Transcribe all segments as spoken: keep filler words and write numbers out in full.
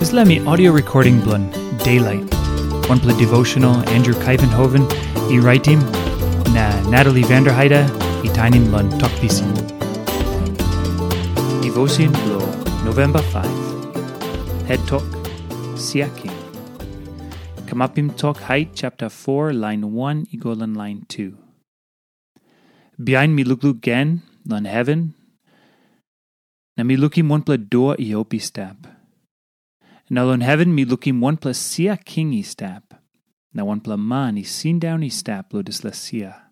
Dispela mi audio recording bilong Daylight. Wanpela devotional Andrew Kaivenhoven i raitim, na Natalie Vanderheide i tainim long Tok Pisin. Devotion bilong November five. Head Tok, Sia King. Kamapim Tok Hait chapter four, line one i go long line two. Bihain mi lukluk gen long heven, na mi lukim wanpela dua i op i stap. Na long heven mi lukim wanpela sia king i stap, na wanpela man i sindaun i stap long dispela sia.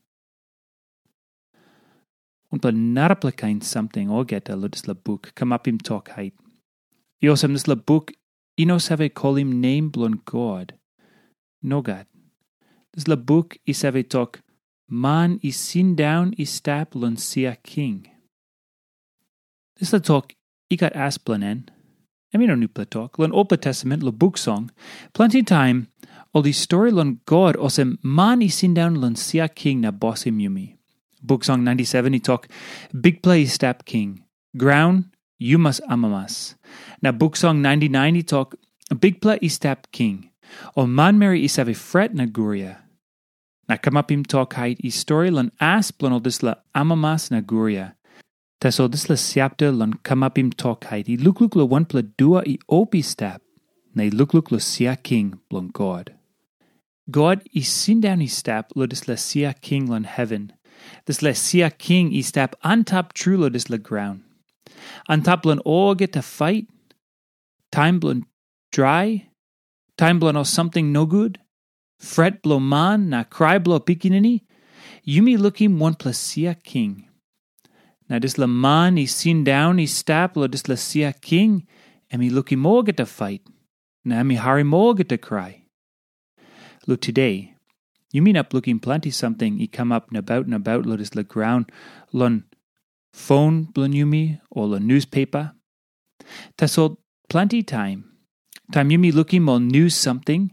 Wanpela narapela kain samting olgeta long dispela buk Kamapim Tok Hait. I olsem dispela buk i no save kolim nem bilong God. Nogat. Dispela buk i save tok, man i sindaun i stap long sia king. Dispela tok i gat as bilong en. Em i no nupela tok. Long Olpela Testament, long buk song, planti taim ol i stori long God olsem man i sindaun long sia king na bosim yumi. Buk song ninety-seven i tok, Bikpela i stap king, graun, yu mas amamas. Na buk song ninety-nine i tok, Bikpela i stap king, ol manmeri i save fret na guria. Na Kamapim Tok Hait i stori long as bilong ol dispela amamas na guria. Tasol dispela chapter long Kamapim Tok Hait i lukluk long wanpela dua i op i stap, na i lukluk long sia king bilong God. God i sindaun i stap long dispela sia king long heven. Dispela sia king i stap antap tru long dispela graun. Antap long olgeta fait, taim bilong drai, taim bilong ol samting nogut, fret bilong man na krai bilong pikinini, yumi lukim wanpela sia king. Na dispela man i sindaun i stap long dispela sia king, em i lukim olgeta fait, na em i harim olgeta krai. Lo tude, yumi inap lukim planti samting i kamap nabaut nabaut long dispela graun, long fon bilong yumi o long nuspepa. Tasol planti taim, taim yumi lukim ol nus samting,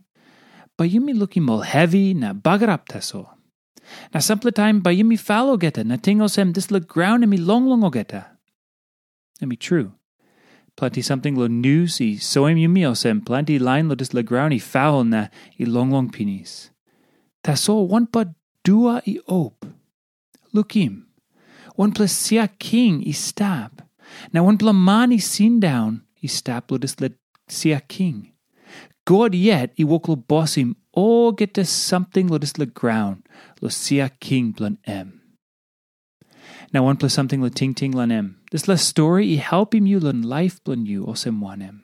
bai yumi lukim ol hevi na bagarap tasol. Na sampela taim bai yumi fal olgeta na ting olsem dispela graun em i longlong olgeta. Em i tru. Planti samting long nus i soim yumi olsem planti lain long dispela graun i fal na i longlong pinis. Tasol wanpela dua i op. Lukim, wanpela sia king i stap, na wanpela man i sindaun i stap long dispela sia king. God yet i wok long bosim olgeta samting long dispela graun long sia king bilong em. Na wanpela samting long tingting long em. Dispela stori i helpim yu long laip bilong yu olsem wanem?